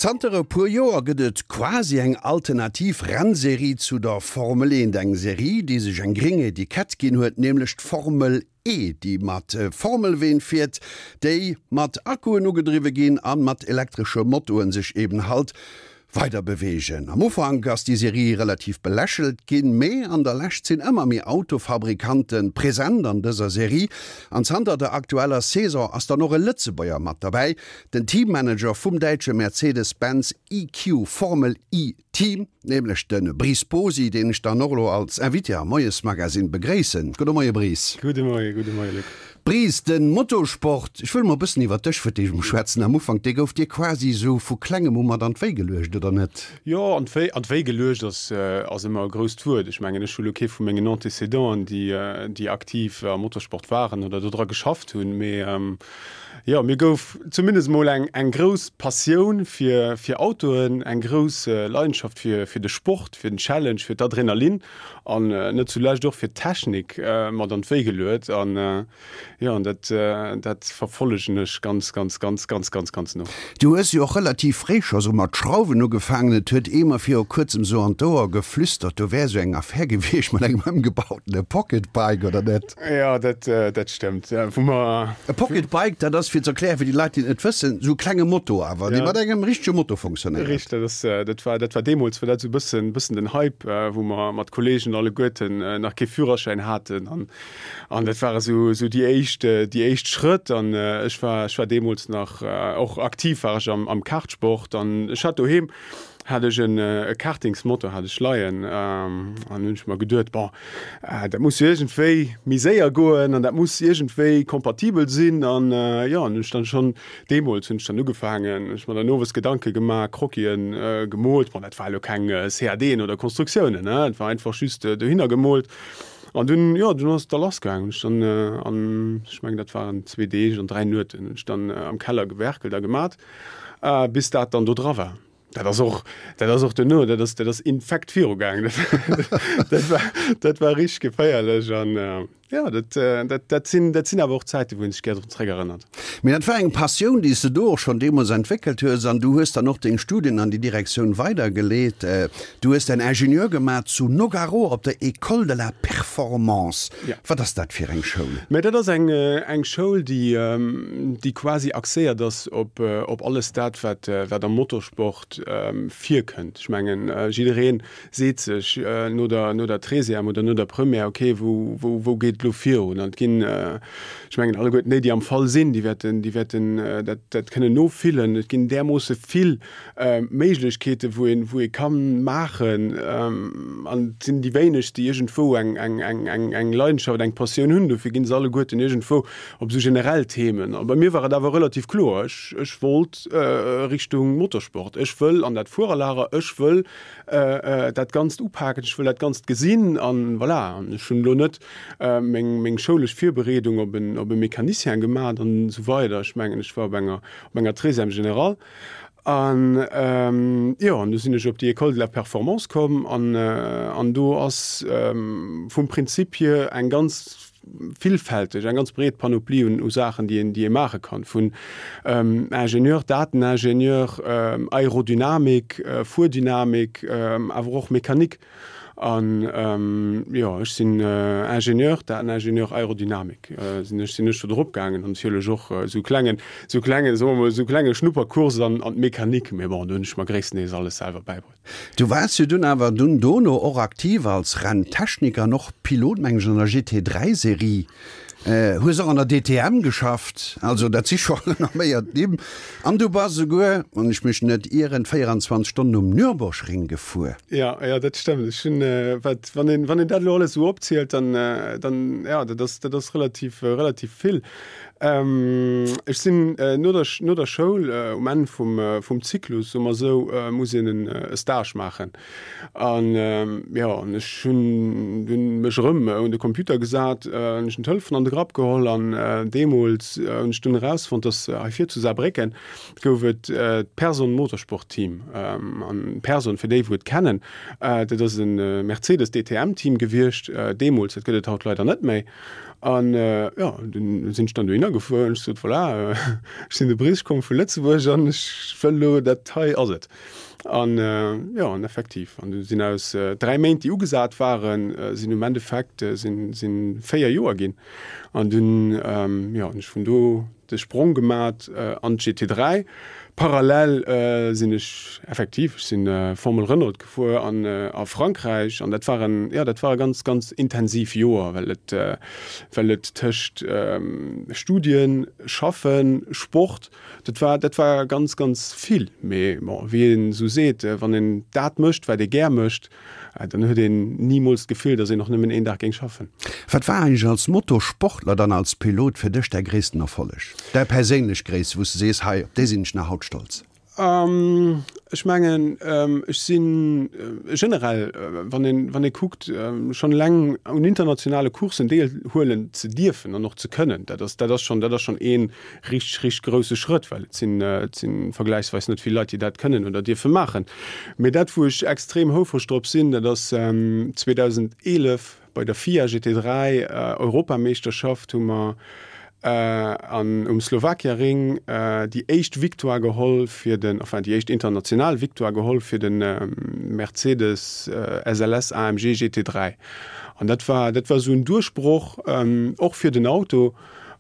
Zanter e puer Joer gëtt et quasi eng alternativ Rennserie zu der Formel 1. Eng Serie, déi sech eng gréng Etikett ginn huet, nämlech d'Formel E, déi mat Formelween fiert, déi mat Akkuen ugedriwwe ginn a mat elektresche Motoren sech eben halt weider beweegen. Am Ufank ass déi Serie relativ belächelt ginn, mee an der Lescht sinn ëmmer méi Autofabrikante present an dëser Serie an zanter der aktueller Saison ass dann och e Lëtzebuerger mat derbäi, Den Teammanager vum däitsche Mercedes-Benz EQ Formel E Team, nämlech de Brice Bosi, deen ech dann och elo als Invité am Moiesmagazine begréissen. Gudde Moie Brice. Gudde Moie, gudde Moie Luc. Brice, de Motorsport, ech wëll mol e bëssen iwwer dech fir d'éischt emol schwätzen am Ufank, dee gouf dir quasi esou vu klengem u mat an d'Wéi geluecht, oder net? Jo, an d'Wéi, an d'Wéi geluecht ass, ass ëmmer e grousst Wuert. Ech mengen, ech hu lo kee vu mengen Antécédenten, déi, déi aktiv am Motorsport waren oder dodra geschafft hunn, mee Jo, mir gouf zumindest mol eng eng grouss Passioun fir fir Autoen, eng grouss Leidenschaft fir fir de Sport, fir den Challenge, fir d'Adrenalin an net zulescht och fir d'Technik mat an d'Wéi geluet. An jo, an dat dat verfollegen ech ganz, ganz, ganz, ganz, ganz, ganz no. Du hues jo och relativ fréi scho sou mat Schrauwen ugefaangen. Et huet ee mer viru kuerzem sou an d'Ouer geflüstert, do wär sou eng Affär gewiescht mat engem ëmgebautene Pocket Bike, oder net? Jo, dat, dat stëmmt. Wou mer. E Pocket Bike, dat ass, fir ze erklären, fir déi Leit, déi et net wëssen, esou e klenge Moto awer, dee mat engem richtege Moto funktionéiert. Richteg, dat ass, dat war, dat war deemools war dat esou e bëssen, bëssen den Hype, wou mer mat Kolleegen alleguerten nach kee Führerschäin haten an, an dat ware esou, esou déi éischt, déi éischt Schrëtt. An ech war, ech war deemools nach och aktiv war ech am, am Kartsport an ech hat doheem, hat ech en e Kartingsmotor hat ech leien an hunn ech mer geduet, bon, dat muss jo iergendwéi méi séier goen an dat muss iergendwéi kompatibel sinn an jo, an hunn ech dann schonn deemools hunn ech dann ugefaangen, hunn ech mer dann owes Gedanke gemaach, Croquisen gemoolt, bon dat war elo keng CADen oder Konstruktiounen, ne, et war einfach just dohinner gemoolt an dunn, jo, dunn ass et da lass gaangen, hunn ech dann an, ech mengen dat waren zwee Deeg an 3 Nueten, hunn ech dann am Keller gewerkelt a gemat. Bis dat dann do dra war. Dat ass och, dat ass och duerno, dat ass, dat ass infekt virugaangen. Dat war, dat war richteg geféierlech an jo, dat, dat, dat sinn, dat sinn awer och Zäiten, wou een sech gär drun zréckerënnert. Mee dat war eng Passioun, déi s de do och schonn deemools entwéckelt hues an du hues dann och deng Studien an déi Direktioun weidergeleet. Du hues däin Ingenieur gemaach zu Nogaro op der École de la Performance. Ja. Wat ass dat fir eng Schoul? Mä dat ass eng, eng Schoul, déi, déi quasi axéiert ass op, op alles dat, wat, wat am Motorsport virkënnt. Ech mengen, jidderee seet sech no der, no der Treizième oder no der Première, okay, wou, wou, wou geet et elo virun? An et ginn, ech mengen, alleguerten déi, déi am Fall sinn, déi wäerten, déi wäerten dat, dat kënnen nofillen. Et ginn därmoosse vill Méiglechkeeten, wou een, wou ee ka maachen, an et sinn déi wéinegst, déi iergendwou eng, eng, eng, eng, eng Leidenschaft, eng Passioun hunn. Dofir ginn se alleguerten iergendwou op esou generell Themen. A bei mir war et awer relativ kloer, ech, ech wollt Richtung Motorsport, ech wëll an dat Fuererlager, ech wëll dat Ganzt upaken, ech wëll dat Ganzt gesinn an voilà. An ech hunn elo net meng, meng schoulesch Virbereedung op en, op e Mecanicien gemat an esou weider. Ech mengen, ech war op enger, op enger Treizième générale. An jo, an du sinn ech op déi École de la Performance komm an an do ass vum Prinzip hier eng ganz villfälteg, eng ganz breet Panoplie un u Saachen, déi een déi ee maache kann, vun Ingenieur, Dateningenieur, Aerodynamik, Fuerdynamik, awer och Mechanik. An jo, ech sinn Ingenieur, Dateningenieur Aerodynamik sinn ech, sinn ech do drop gaangen an natierlech och esou klengen, esou klengen, soe mer mol, esou klenge Schnupperkurs an an d'Mechanik, mee bon, do hunn ech mer gréisstendeels alles selwer bäibruet. Du waars jo dunn awer dunn dono och aktiv als Renntechniker an och Pilot, mengen ech, an der GT3 Serie. Hues och an der DTM geschafft, also dat si scho renomméiert Nimm. An du bass esouguer, wann ech mech net ieren, 24 Stonnen um Nürburgring gefuer. Jo, jo, dat stëmmt. Ech hunn, wat, wann een, wann een dat elo alles esou opzielt, dann, dann, jo, dat ass, dat ass relativ, relativ vill. Ech sinn no der, no der Schoul, um Enn vum, vum Zyklus, soe mer esou, muss een en e Stage maachen. An jo, an ech hunn dunn mech erëm un de Computer gesat, hunn ech den Telefon an de Grapp geholl an deemools hunn ech dunn erausfonnt, dass hei vir zu Saarbrécken gouf et d'Person Motorsport Team. An Person, fir déi wou et kennen, dat ass e Mercedes DTM Team gewiescht deemools, dat gëtt et haut leider net méi. An jo, dunn sinn ech dann dohinner gefuer an ech sot, Voilà, ech sinn de Brice, ech komme vu Lëtzebuerg an ech wëll elo, dat hei ass et. An jo, an effektiv, an du sinn aus 3 Méint, déi ugesat waren, sinn um Endeffekt sinn, sinn 4 Joer ginn. An dunn, jo, hunn ech vun do de Sprong gemat an d'GT3. Parallel sinn ech effektiv, ech sinn Formel Renault gefuer an a Frankräich an dat war en, jo, dat war e ganz, ganz intensiv Joer, well et, well et tëscht Studien, Schaffen, Sport, Dat war, dat war ganz, ganz vill. Mee bon, wéi een esou seet, wann een dat mécht, wat ee gär mécht, dann huet een nimools d'Gefill, datt een och nëmmen een Dag géing schaffen. Wat war eigentlech als Motosportler, dann als Pilot fir dech däi gréissten Erfolleg? Däi perséinlech gréisste, wou s de sees, hei, op dee sinn ech nach haut stolz? Ech mengen, ech si generell, wann een, wann ee kuckt, schonn eleng un internationale Courssen deelhuelen ze dierfen an och ze kënnen, dat ass, dat ass schonn, dat ass schonn ee richteg, richteg grousse Schrëtt, well et sinn, et si vergläichsweis net vill Leit, déi dat kënnen oder dierfe maachen. Mee dat, wou ech extrem houfreg drop sinn, dat ass 2011 bei der FIA GT3 Europameeschterschaft hu mer an um Slovakia Ring déi éischt Victoire geholl fir den, enfin déi éischt international Victoire geholl fir de Mercedes SLS AMG GT3. An dat war, dat war esou en Duerchbroch och fir den Auto.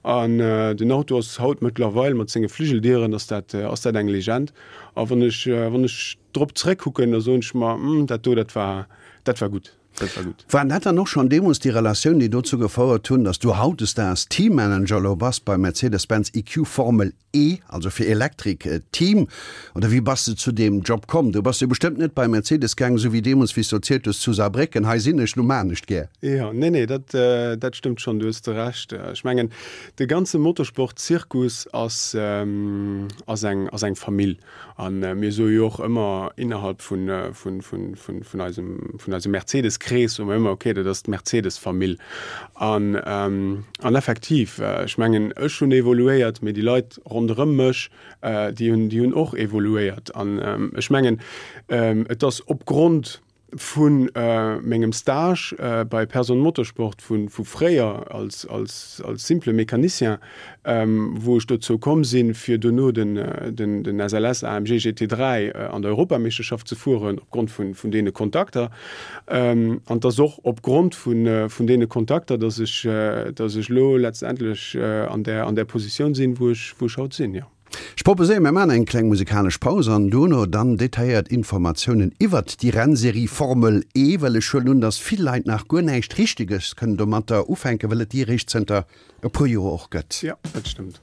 An den Auto ass haut mëttlerweil mat senge Fligeldieren ass dat, ass dat eng Legend. A wann ech, wann ech drop zeréckkucken, da soen ech mer, hm, dat do, dat war, dat war gutt. Dat war gutt. Waren dat dann och schonn deemools déi Relatioun, déi dozou gefouert hunn, datt du hautdesdaags Teammanager elo bass beim Mercedes-Benz EQ Formel E, also fir Electric Team? Oder wéi bass de zu deem Job komm? Du bass jo bestëmmt net bei Mercedes gaang, esou wéi deemools, wéi s du erzielt hues, zu Saarbrécken, hei sinn ech, lo maan ech gär. Jo, nee, nee, dat, dat stëmmt schonn, du hues de Recht. Ech mengen, de ganze Motorsport-Zirkus ass, ass eng, ass eng Famill. A mir soe jo och ëmmer innerhalb vun eisem vun eisem Mercedes-Krees soe mer ëmmer, okay, dat ass d'Mercedes-Famill. An an effektiv, ech mengen, ech hunn evoluéiert, mee déi Leit ronderëm mech, déi hunn déi hunn och evoluéiert. An ech mengen, et ass opgrond Vu mengem Stage bei Person Motorsport vu fréier als simple Mécanicien, wou ech dozou komm sinn, fir dono den SLS AMG GT3 an der Europameeschterschaft ze fueren, opgrond vun deene Kontakter. An et ass och opgrond vun deene Kontakter, datt ech elo letztendlech an där Positioun sinn, wou ech haut sinn, jo. Ech proposéieren, mir maachen eng kleng musikalesch Paus an dono dann detailléiert Informatiounen iwwert déi Rennserie Formel E, well ech huelen un, dass vill Leit nach guer näischt Richteges kënnen domatter ufänken, well et déi eréischt zënter e puer Joer och gëtt. Jo, dat stëmmt.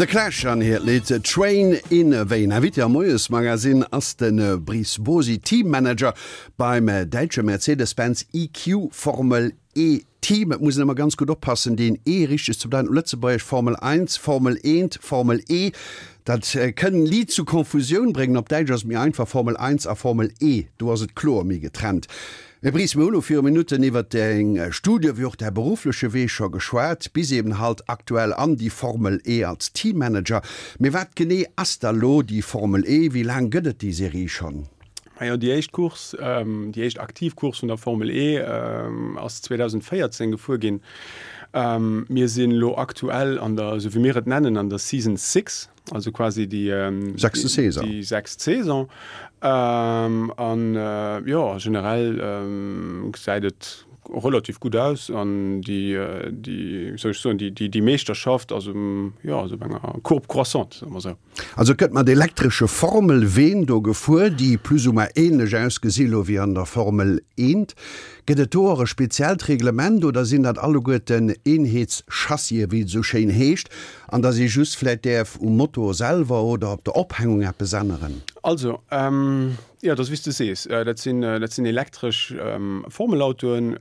The Clash an hiert Lidd Train in Vain. Invité am Moiesmagazin ass de Brice Bosi, Teammanager beim däitsche Mercedes-Benz EQ Formel E Team. Et muss een ëmmer ganz gutt oppassen, deen E richteg ze bedeiten op Lëtzebuergesch, Formel 1, Formel eent, Formel E, dat kënn liit zu Konfusioun bréngen. Op Däitsch ass et méi einfach, Formel 1 a Formel E, do ass et kloer méi getrennt. Här Bries, mir hu lo viru Minutten iwwert deng Studie wéi och däi beruffleche Wee scho geschwat, bis eben halt aktuell an déi Formel E als Teammanager. Mee wat genee ass da lo déi Formel E? Wéi laang gëtt et déi Serie schonn? Majo, déi éischt Course, déi éischt aktiv Course vun der Formel E ass 2014 gefuer ginn. Mir sinn elo aktuell an der, esou wéi mir et nennen, an der Season Six. Also quasi déi sechste Saison. Déi sechst Saison. An jo, generell gesäit et relativ gutt aus an déi, déi, wéi soll ech soen, déi, déi Meeschterschaft ass um, jo, ass op enger Courbe croissante, soe mer esou. Also et gëtt mat elektresche Formel-Ween do gefuer, déi plus ou moins ähnlech ausgesi lo wéi an der Formel 1. Gëtt et do och e speziellt Reglement oder sinn dat alleguerten Eenheetschassien, wéi et esou schéin heescht? An dass ee just vläit däerf um Motor selwer oder op der Ophängung eppes änneren. Also, jo, et ass wéi s de sees, dat sinn, dat sinn elektresch Formelautoen,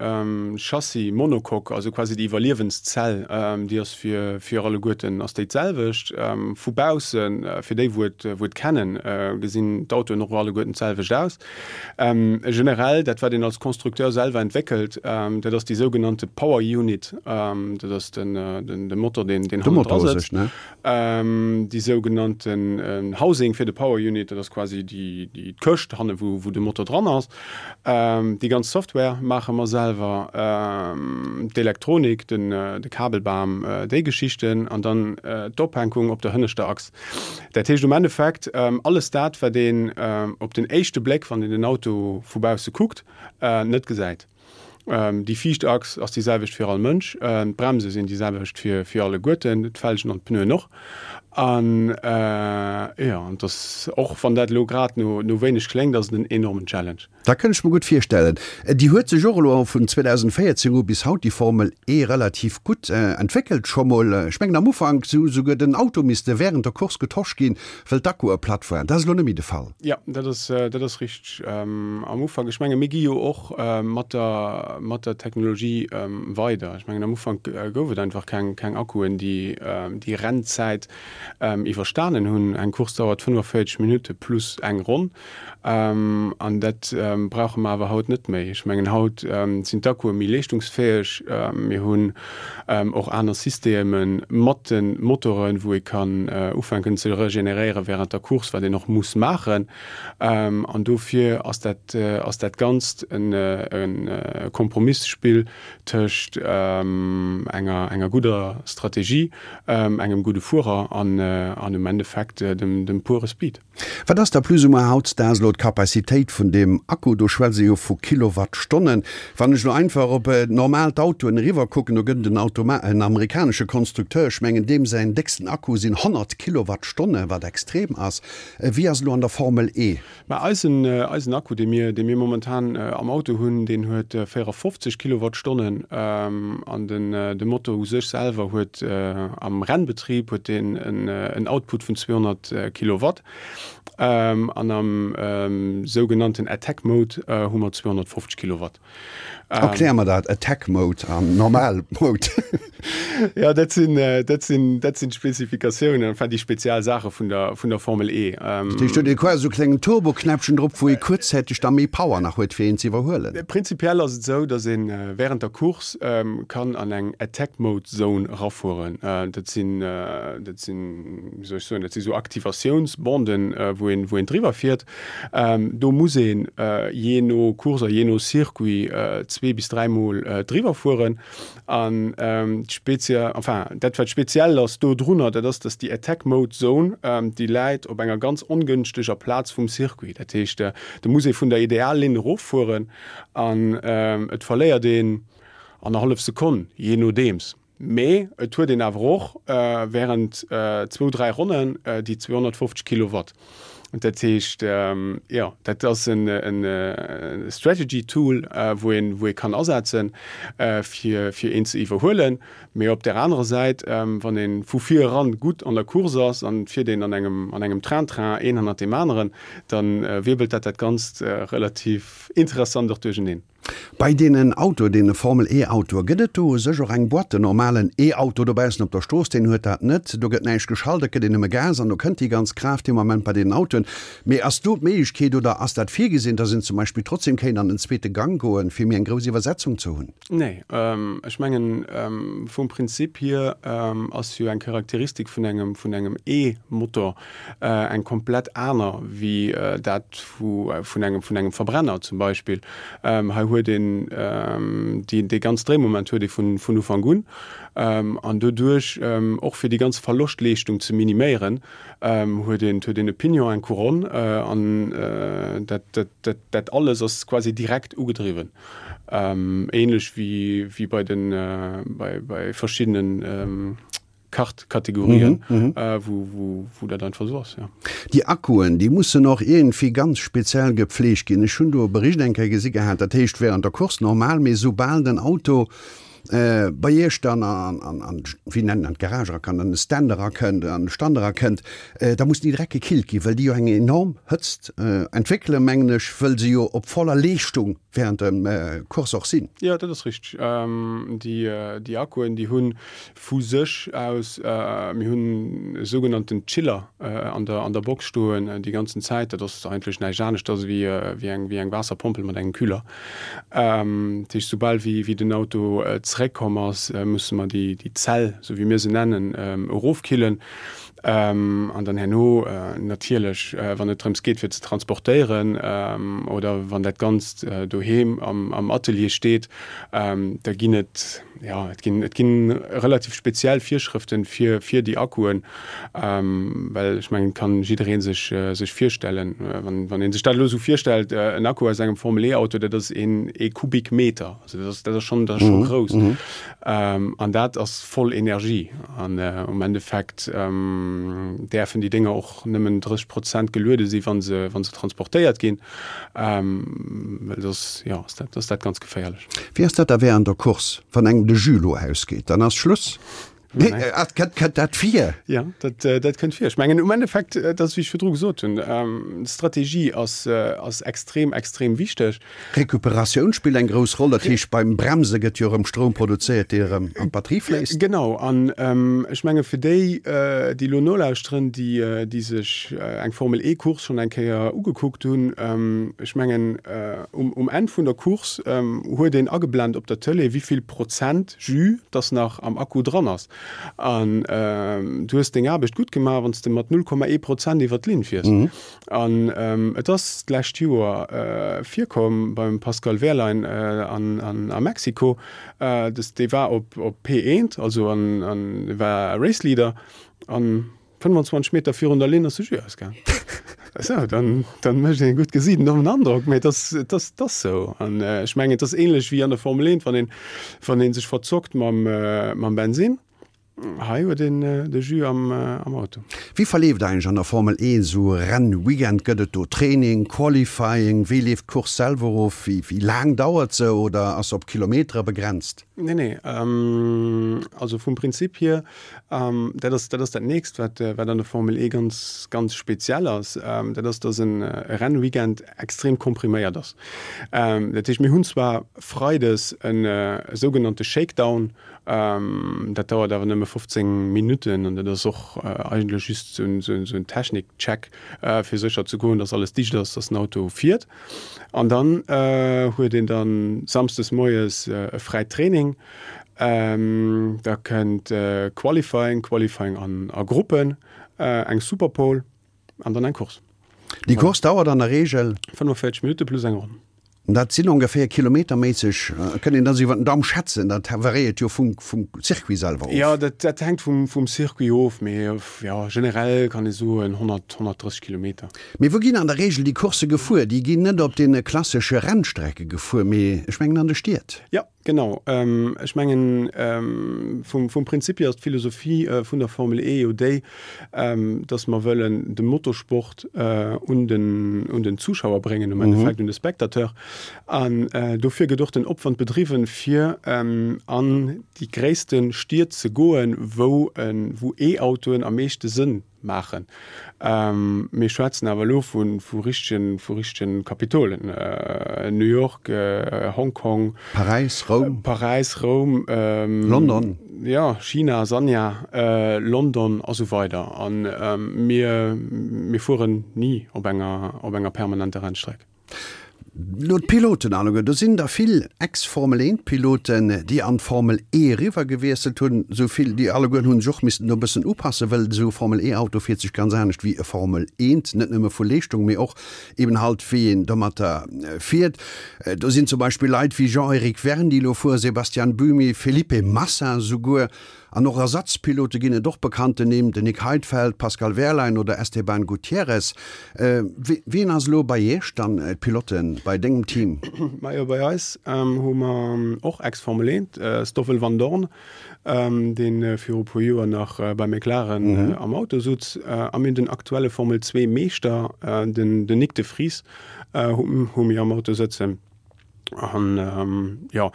Chassis monocoque, also quasi déi Iwwerliewenszell, déi ass fir, fir alleguerten ass déi d'selwecht. Vu baussen, fir déi wou et, wou et kennen, gesinn d'Autoen och alleguerten d'selwecht aus. Generell, dat wat een als Constructeur selwer entwéckelt, dat ass déi sougenannte Power Unit, dat ass de Motor, deen hannendra sëtzt. Déi sougenannten Housing fir de Power Unit, dat ass quasi déi Këscht hanne wou de Motor dran ass. Déi ganz Software maache mer selwer, d'Elektronik, de Kabelbam, déi Geschichten an dann d'Ophänkung op der hënneschter Achs. Dat heescht um Endeffekt, alles dat, wat een op den éischte Bléck, wann een den Auto vu bausse kuckt, net gesäit. Déi viischt Achs ass déi selwecht fir all Mënsch, d'Bremse sinn déi selwecht fir alleguerten, d'Felgen an d'Pneuen och. An jo, an et ass, och wann dat elo grad no wéineg kléngt, ass et en enormen Challenge. Dat kënnt ech mer gutt virstellen. Déi huet sech och elo vun 2014 u bis haut, déi Formel E, relativ gutt entwéckelt scho mol. Ech mengen am Ufank si souguer den Auto misste wärend der Course getosch ginn, wëll d'Akkue platt waren. Dat ass elo net méi de Fall. Jo, dat ass, dat ass richteg. Am Ufank, ech menge mir gi jo och mat der, mat der Technologie weider. Ech mengen am Ufank gouf et einfach keng, keng Akkuen, déi déi Rennzäit iwwerstanen hunn. Eng Course dauert 45 Minutte plus eng Ronn. An dat brauche mer awer haut net méi. Ech mengen, haut sinn d'Akkue méi leeschtungsfäeg. Mir hunn och aner Systeme mat de Motoren, wou ee kann ufänken ze regeneréiere während der Course, wat een och muss maachen. An dofir ass dat, ass dat Ganzt e Kompromissspill tëscht enger, enger gudder Strategie, engem gudde Fuerer an, an um Endeffekt dem, dem pure Speed. Wat ass da plus ou moins hautzdags elo d'Capacitéit vun deem Akku? Do schwätze jo vu Kilowattstonnen. Wann ech elo einfach op normal d'Autoen eriwwer kucken, do gëtt et en Automa en amerikanesche Konstrukteur, ech mengen deem säin décksten Akku sinn 100 Kilowattstonne, wat extrem ass. Wéi ass et elo an der Formel E? Mä eisen, eisen Akku, dee mir, dee mir momentan am Auto hunn, deen huet 54 Kilowattstonnen an den, de Motor u sech selwer huet am Rennbetrib huet deen en Output vun 200 Kilowatt an am sougenannten Attack Mode hu mer 250 Kilowatt. Erklär mer dat, Attack Mode an normal Mode. Jo, dat sinn, dat sinn, dat sinn d'Spezifikatiounen, enfin déi spezial Saache vun der, vun der Formel E. Dat heescht, do huet ee quasi esou e klengen Turboknäppchen drop, wou ee kuerzzäiteg da méi Power nach huet, fir een ze iwwerhuelen. Prinzipiell ass et esou, datt ee wärend der Course kann an eng Attack Mode Zone erafueren. Dat sinn, dat sinn, wéi soll ech soen, dat si sou Aktivatiounsbanden, wou een, wou een driwwer fiert. Do muss een jee no Course a jee no Circuit zwee bis dräimol driwwer fueren. An d'Spezie, enfin dat wat speziell ass dodrunner, dat ass, datt déi Attack Mode Zone, déi läit op enger ganz ongënschteger Plaz vum Circuit. Dat heescht, do muss ee vun der Ideallinn eroffueren an et verléiert een annerhallef Sekonn, jee nodeems. Mee et huet een awer och während zwou, dräi Ronnen déi 250 Kilowatt. Dat heescht, jo, dat ass en Strategy Tool, wou een, wou ee kann asetzen, fir, fir een ze iwwerhuelen. Mee op där anerer Säit, wann ee vu vir eran gutt an der Course ass an et fiert een an engem, an engem Train-Train een hannert deem aneren, da wirbelt dat dat Ganzt relativ interessant och duercheneen. Bei deenen Autoe, deene Formel E Autoe, gëtt et do u sech och eng Boîte? Den normalen E-Auto dobaussen op der Strooss, deen huet dat net. Do gëtt näischt geschalt, et gëtt een nëmme Gas an do kënnt déi ganz Kraaft dee Moment bei deenen Autoen. Mee ass do d'Méiglechkeet oder ass dat virgesinn, dass een zum Beispill trotzdem kéint an den zweete Gang goen, fir méi eng grouss Iwwersetzung ze hunn? Nee, ech mengen, vum Prinzip hier ass jo eng Charakteristik vun engem, vun engem E-Motor eng komplett aner wéi dat vu, vun engem, vun engem Verbrenner zum Beispill. Hei huet een déi, dee ganz Dréimoment huet ee vun, vun Ufank un. An doduerch, och fir déi ganz Verloschtleeschtung ze miniméieren, huet een, huet een e Pignon, eng Couronne an dat, dat, dat, dat alles ass quasi direkt ugedriwwen. Ähnlech wéi bei den bei verschiddenen Kart-Kategorien, wou dat einfach esou ass, jo. Déi Akkuen, déi mussen och iergendwéi ganz speziell gepflegt ginn. Ech hunn do e Bericht eng Kéier gesi gehat, dat heescht während der Course normal, mee soubal den Auto bei Iech dann an, wéi nennen, an d'Garage erakënnt, an de Stand erakënnt, an de Stand erakënnt, da mussen déi direkt gekillt ginn, well déi jo eng enorm Hëtzt entwéckelen, mengen ech, wëll se jo op voller Leeschtung während dem Course och sinn. Jo, dat ass richteg. Déi Akkuen, déi hu vu sech aus, mir hunn e sougenannten Chiller an der an der Box stoen déi ganzen Zäit. Dat ass eigentlech näischt aneschters ewéi eng wéi eng Waasserpompel mat engem Kühler. Dat heescht, soubal wéi wéi den Auto zeréckkomm ass, musse mer déi déi Zell, esou wéi mir se nennen, erofkillen. An dann herno natierlech, wann et drëms geet fir ze transportéieren oder wann dat Ganzt doheem am Atelier steet, da ginn et, jo, et ginn, et gi relativ speziell Virschrëften fir, fir déi Akkuen, well ech mengen, et kann jidderee sech, sech virstellen, wann, wann ee sech dat elo esou virstellt, en Akku aus engem Formel-E-Auto, dat ass een, ee Kubikmeter, also dat ass, dat ass schonn, dat ass scho grouss. An dat ass voll Energie. An um Endeffekt däerfen déi Dénger och nëmmen 30 Prozent geluede si wa se, wa se transportéiert ginn, well soss, jo, ass dat, ass dat ganz geféierlech. Wéi ass dat da während der Course, wann engem de Jus lo ausgeet, dann ass Schluss? Kënnt dat vir? Jo, dat, dat kënnt vir. Ech mengen um Endeffekt, dat ass wéi ech virdru gesot hunn, d'Strategie ass, ass extrem, extrem wichteg. Recuperatioun spillt eng grouss Roll, dat heescht beim Bremse gëtt jo erëm Stroum produzéiert, dee erëm an d'Batterie fléisst. Genau, an ech menge fir déi, déi elo nolauschteren, déi, déi sech eng Formel E Course schonn eng Kéier ugekuckt hunn, ech mengen um, um Enn vun der Course huet een ageblent op der Tëlee, wéi vill Prozent Jus dass nach am Akku dran ass. An du hues deng Aarbecht gutt gemaach, wann s de mat 0,1 Prozent iwwer d'Linn fiers. An et ass d'lescht Joer virkomm beim Pascal Wehrlein an a Mexiko, dass dee war op P1, also an war Race Leader an 25 Meter virun der Linn ass de Jus ausgaang. Sou, dann, dann mécht een e gutt Gesiit en dommen Androck, mee et ass, et ass, et ass sou. An ech mengen, et ass ähnlech wéi an der Formel 1, wann een, wann ee sech verzockt mam, mam Bensinn. Hei huet een de Jus am, am Auto. Wéi verleeft eigentlech an der Formel 1 esou e Rennweekend? Gëtt et do Training, Qualifying? Wéi leeft d'Course selwer of? Wéi, wéi laang dauert se oder ass se op Kilometere begrenzt? Nee, nee, also vum Prinzip hier, dat ass, dat ass dat nächst, wat, wat an der Formel E ganz, ganz speziell ass, dat ass, dass en Rennweekend extrem kompriméiert ass. Dat heescht, mir hunn zwar freides e sougenannte Shakedown, dat dauert awer nëmme 15 Minutten an dat ass och eigentlech just esou en Technikcheck, fir sécher ze goen, dass alles dicht ass, dass den Auto fiert. An dann huet een dann samsdes moies e fräit Training. Da kënnt Qualifying, Qualifying an a Gruppen, eng Superpole an dann eng Course. Déi Course dauert an der Reegel? 45 Minutte plus eng Ronn. Dat sinn ongeféier kilometerméisseg, kënnt een dat esou iwwer den Daum schätzen, dat variéiert jo vum Circuit selwer of. Jo, dat hänkt vum Circuit of, mee jo, generell kann ee soen 100, 130 Kilometer. Mee wou ginn an der Reegel déi Coursse gefuer? Déi ginn net op deene klassesche Rennstrecke gefuer, mee ech mengen an de Stied. Jo, genau. Ech mengen, vum Prinzip hier ass d'Philosophie vun der Formel E jo déi, dass mer wëllen de Motorsport un den Zuschauer bréngen, am Endeffekt un de Spectateur. An dofir gëtt och den Opwand bedriwwen, fir an déi gréisste Stied ze goen, wou E-Autoen am meeschte Sënn maachen. Mir schwätzen awer elo vu richtegen, vu richtegen Kapitolen, New York, Hong Kong, Paräis, Roum, Paräis, Roum, London, jo, China, Sanya, London a sou weider. A mir, mir fueren ni op enger, op enger permanenter Rennstreck. Lo d'Piloten alleguer, do sinn der vill Ex-Formel 1 Piloten, déi an d'Formel E eriwwer gewiesselt hunn. Esou vill, déi allegueren hunn sech och missen do e bëssen upassen, wëll esou e Formel E Auto fiert sech ganz anescht wéi e Formel 1, net nëmme vu Leeschtung, mee och eben halt wéi een domatter fiert. Do sinn zum Beispill Leit wéi Jean-Eric Vergne, déi elo fueren, Sebastian Buemi, Felipe Massa esouguer. An och Ersatzpilote ginn et och bekannten Nimm, den Nick Heidfeld, Pascal Wehrlein oder Esteban Gutierrez. Wien ass elo bei Iech dann d'Pilote bei dengem Team? Majo bei eis hu mer och Ex-Formel 1, Stoffel Vandoorne, dee viru puer Joer nach bei McLaren am Auto sutz, a mir hunn den aktuelle Formel 2 Meeschter, den Nyck de Vries hu mir am Auto sëtzen. An jo,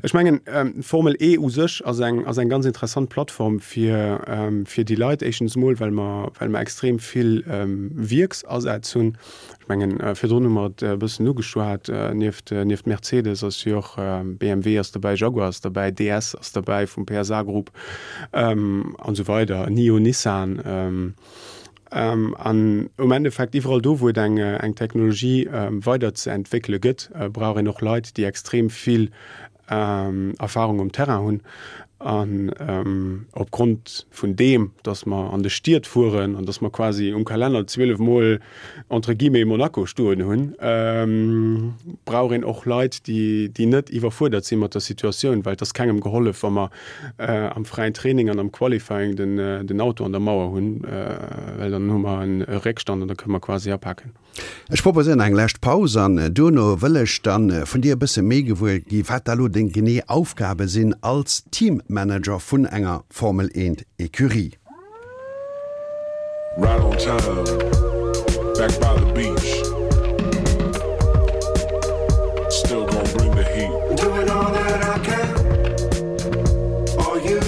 ech mengen, d'Formel E u sech ass eng, ass eng ganz interessant Plattform fir, fir déi Leit. Éischtens emol, well mer, well mer extrem vill Wierksasätz hunn. Ech mengen, virdrun hu mer et e bëssen ugeschwat, nieft, nieft Mercedes ass jo och BMW ass dobäi, Jaguar ass dobäi, DS ass dobäi vum PSA Group an esou weider, Nio, Nissan. An um Endeffekt, iwwerall do, wou et eng Technologie weider ze entwéckele gëtt, brauch een och Leit, déi extrem vill Erfahrung um Terrain hunn. An opgrond vun deem, datt mer an de Stied fueren an datt mer quasi um Kalenner 12 Mol entre guillemets Monaco stoen hunn, brauch een och Leit, déi net iwwerfuerdert si mat der Situatioun, well et ass kengem gehollef, wa mer am fräien Training an am Qualifying den Auto an der Mauer hunn, well dann hu mer e Réckstand an da kënne mer quasi apaken. Ech proposéieren eng lescht Paus an duerno wëll ech dann vun dir e bësse méi gewuer gi wat da lo deng genee Aufgabe sinn als Teammanager vun enger Formel 1 Ecurie. Right on time, back by the beach. Still gonna bring the heat. Doing all that I can for you.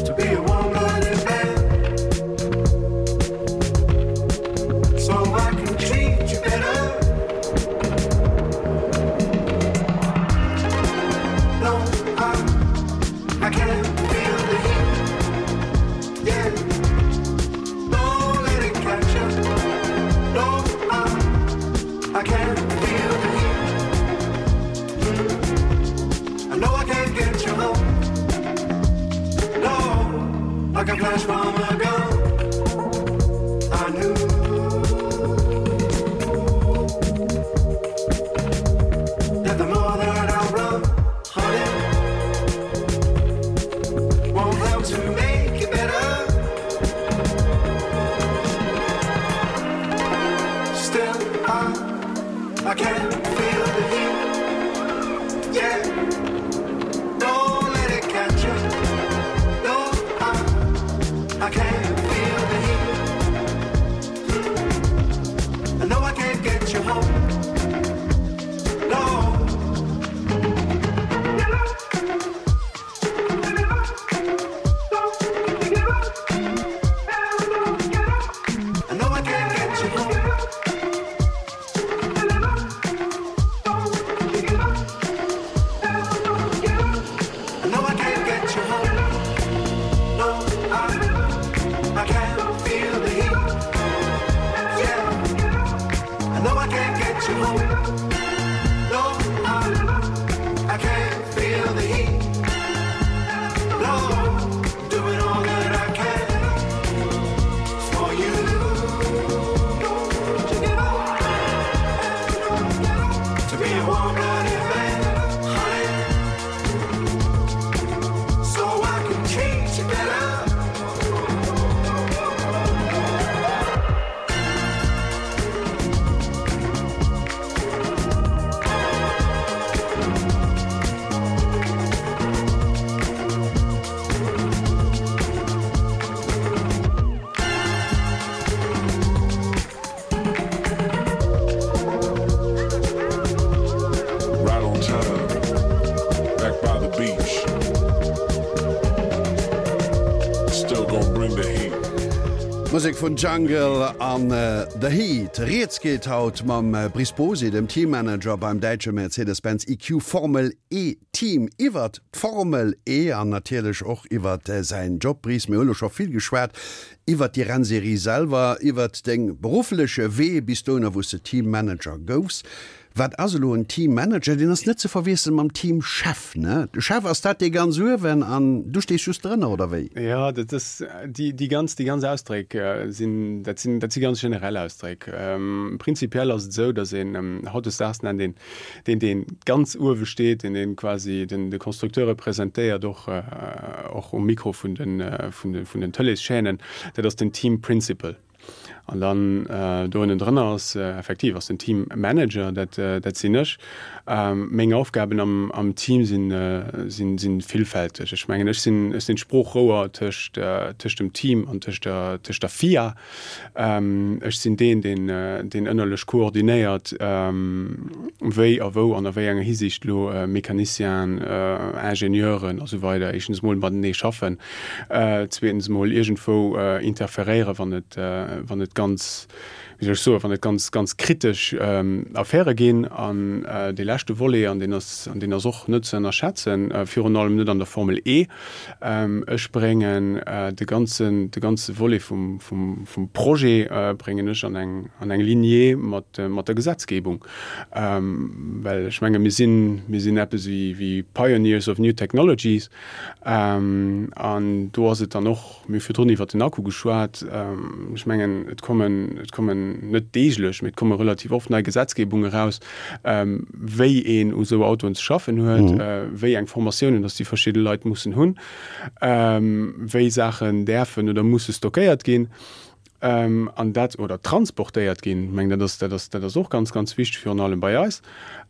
To be a warm-blooded man, so I can treat you better. Musek vun Jungle an The Heat. Rieds geet haut mam Brice Bosy, dem Teammanager beim däitsche Mercedes-Benz EQ Formel E Team iwwert d'Formel E an natierlech och iwwert säin Job. Brice, mir hu lo scho vill geschwat iwwert déi Rennserie selwer, iwwert deng beruffleche Wee bis dohinner wou s de Teammanager goufs. Wat ass elo en Teammanager? Deen ass net ze verwiesselen mam Teamchef, ne? De Chef, ass dat dee ganz uewen an du stees just drënner, oder wéi? Jo, dat ass, déi, déi ganz, déi ganz Ausdréck sinn, dat sinn, dat si ganz generell Ausdréck. Prinzipiell ass et esou, datt een, hautdesdaags nennt een deen, dee ganz uewe steet, deen, deen quasi den, de Constructeur representéiert, och, och um Mikro vun den, vun de, vun den Tëleeschaînen, dat ass den Team Principal. An dann do ënnendrënner ass effektiv ass den Team Manager, dat dat sinn ech. Meng Aufgaben am am Team sinn sinn sinn villfälteg. Ech mengen ech sinn ech sinn d'Sproochrouer tëscht tëscht dem Team an tëscht der tëscht der FIA. Ech sinn deen deen deen ënnerlech koordinéiert wéi a wou an a wéi enger Hisiicht elo Mecanicienen, Ingenieuren a sou weider éischtens emol matenee schaffen. Zweetens emol iergendwou interferéieren, wann et, wann et ganz, wéi soll ech soen, wann et ganz, ganz kritesch Affäre ginn. An dee leschte Volet, an deen ass, an deen ass och net ze ënnerschätzen, virun allem net an der Formel E, Ech bréngen de ganzen, de ganze Volet vum, vum, vum Projet bréngen ech an eng, an eng Lignée mat, mat der Gesetzgebung. Well ech menge mir sinn, mir sinn eppes wéi, wéi Pioneers of new technologies. An do ass et dann och, mir hu virdrun iwwert den Akku geschwat, ech mengen, et kommen, et kommen net deeglech, mee et komme relativ oft nei Gesetzgebungen eraus, wéi een u sou Autoen ze schaffen huet, wéi eng Formatiounen dass déi verschidde Leit mussen hunn, wéi Saachen däerfen oder musse stockéiert ginn. An dat, oder transportéiert ginn, ech mengen, dat ass, dat ass, dat ass och ganz, ganz wichteg, virun allem bei eis.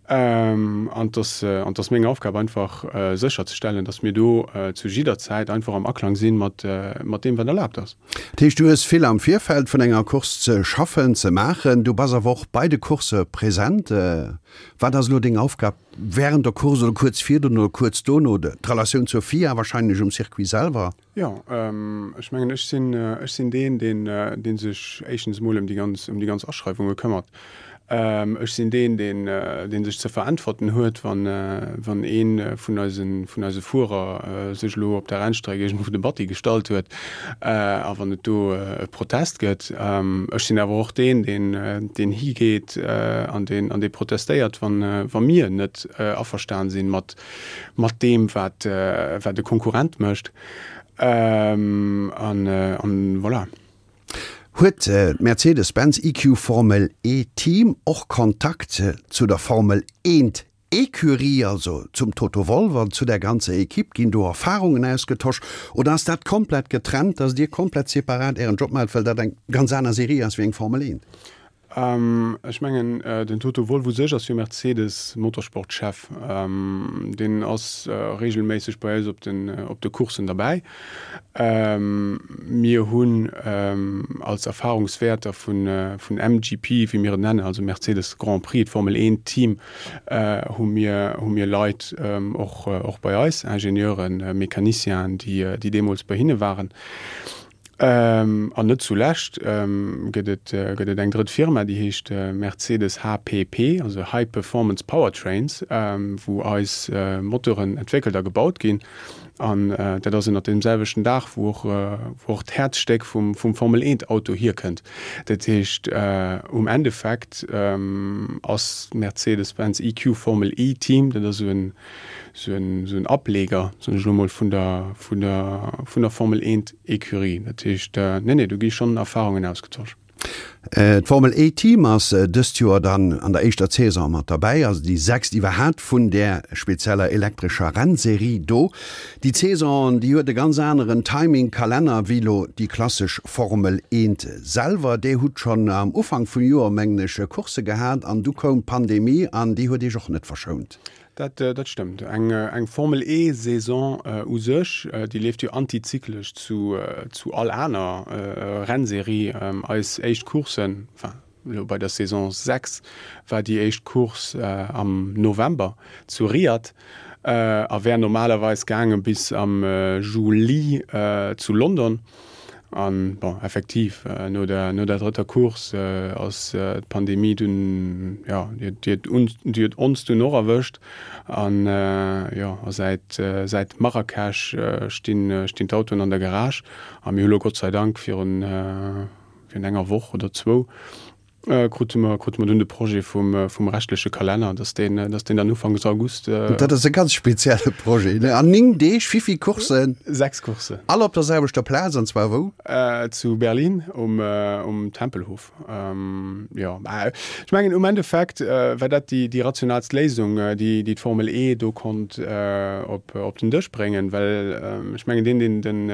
An et ass, an et ass meng Aufgab einfach sécherzestellen, datt mir do zu jidder Zäit einfach am Aklang si mat, mat deem, wat erlaabt ass. Dat heescht, du hues vill am Virfeld vun enger Course ze schaffen, ze maachen. Du bass awer och bei de Coursse present. Wat ass elo deng Aufgab wärend der Course oder kuerz virdrun oder kuerz dono? D'Relatioun zur FIA wahrscheinlech um Circuit selwer? Jo, ech mengen, ech sinn, ech sinn deen, deen, dee sech éischtens emol ëm déi ganz, ëm déi ganz Aschreiwunge këmmert. Ech sinn deen, deen, dee sech ze veräntwerten huet, wann, wann ee vun eisen, vun eise Fuerer sech elo op der Rennstreck iergendwou de Batti gestallt huet a wann et do e Protest gëtt. Ech sinn awer och deen, deen, deen higeet an deen, an dee protestéiert, wann, wa mir net averstan sinn mat, mat deem wat wat e Konkurrent mécht an an voilà. Huet d'Mercedes-Benz EQ Formel E Team och Kontakt zu der Formel Eent Ecurie, also zum Toto Wolff an zu der ganzer Equipe? Ginn do Erfarungen ausgetosch oder ass dat komplett getrennt, dass Dir komplett separat Ären Job maacht, well dat eng ganz aner Serie ass wéi eng Formel Eent? Ech mengen, den Toto Wolff u sech ass jo Mercedes Motorsport-Chef. Deen ass reegelméisseg bei eis op den, op de Courssen derbäi. Mir hunn als Erfahrungswäerter vun, vun MGP, wéi mir et nennen, also Mercedes Grand Prix, d'Formel 1 Team, hu mir, hu mir Leit och, och bei eis, Ingenieuren, Mecanicienen, déi, déi deemools bei hinne waren. An net zulescht gëtt et gëtt et eng drëtt Firma, déi heescht Mercedes HPP, also High Performance Powertrains, wou eis Motoren entwéckelt a gebaut ginn. An dat ass ënnert deem selwechten Daach, wou och wou och d'Häerzstéck vum vum Formel 1 Auto hierkënnt. Dat heescht um Endeffekt ass d'Mercedes-Benz EQ Formel E Team, dat ass esou en esou en esou en Ableger, soen ech elo mol, vun der vun der vun der Formel 1 Ecurie. Dat heescht, nee, nee, do gi schonn Erfahrungen ausgetosch. D'Formel E Team ass dëst Joer dann an der éischter Saison mat derbäi, also déi sechst iwwerhaapt vun där spezieller elektrescher Rennserie do. Déi Saison, déi huet e ganz aneren Timing, Kalenner, wéi elo déi klassesch Formel 1 selwer. Där hutt schonn am Ufank vum Joer, mengen ech, Coursse gehat an du koum d'Pandemie an déi huet Iech och net verschount. Dat, dat stëmmt. Eng, eng Formel E Saison u sech, déi leeft jo antizyklesch zu, zu all aner Rennserie. Eis éischt Courssen, enfin elo bei der Saison 6 war déi éischt Course am November zu Riyadh a wär normalerweis gaange bis am Juli zu London. An, bon, effektiv, no der, no der drëtter Course ass d'Pandemie dunn, jo, déi huet, déi huet ons dunn och erwëscht. An, jo, a säit, säit Marrakesch stinn, stinn d'Autoen an der Garage. A mir hu lo Gott sei Dank virun, virun enger Woch oder zwou Krute mer, krute mer dunn de Projet vum, vum rechtleche Kalenner, dass deen, dass deen dann ufanks August. Dat ass e ganz spezielle Projet, ne? An 9 Deeg, wéi vill Courssen? 6 Courssen. All op der selwechter Plaz, an zwar wou? Zu Berlin um, um Tempelhof. Jo, mä ech mengen um Endeffekt war dat déi, déi rationalst Léisung, déi, déi d'Formel E do konnt op, op den Dësch bréngen, well ech mengen deen, deen den.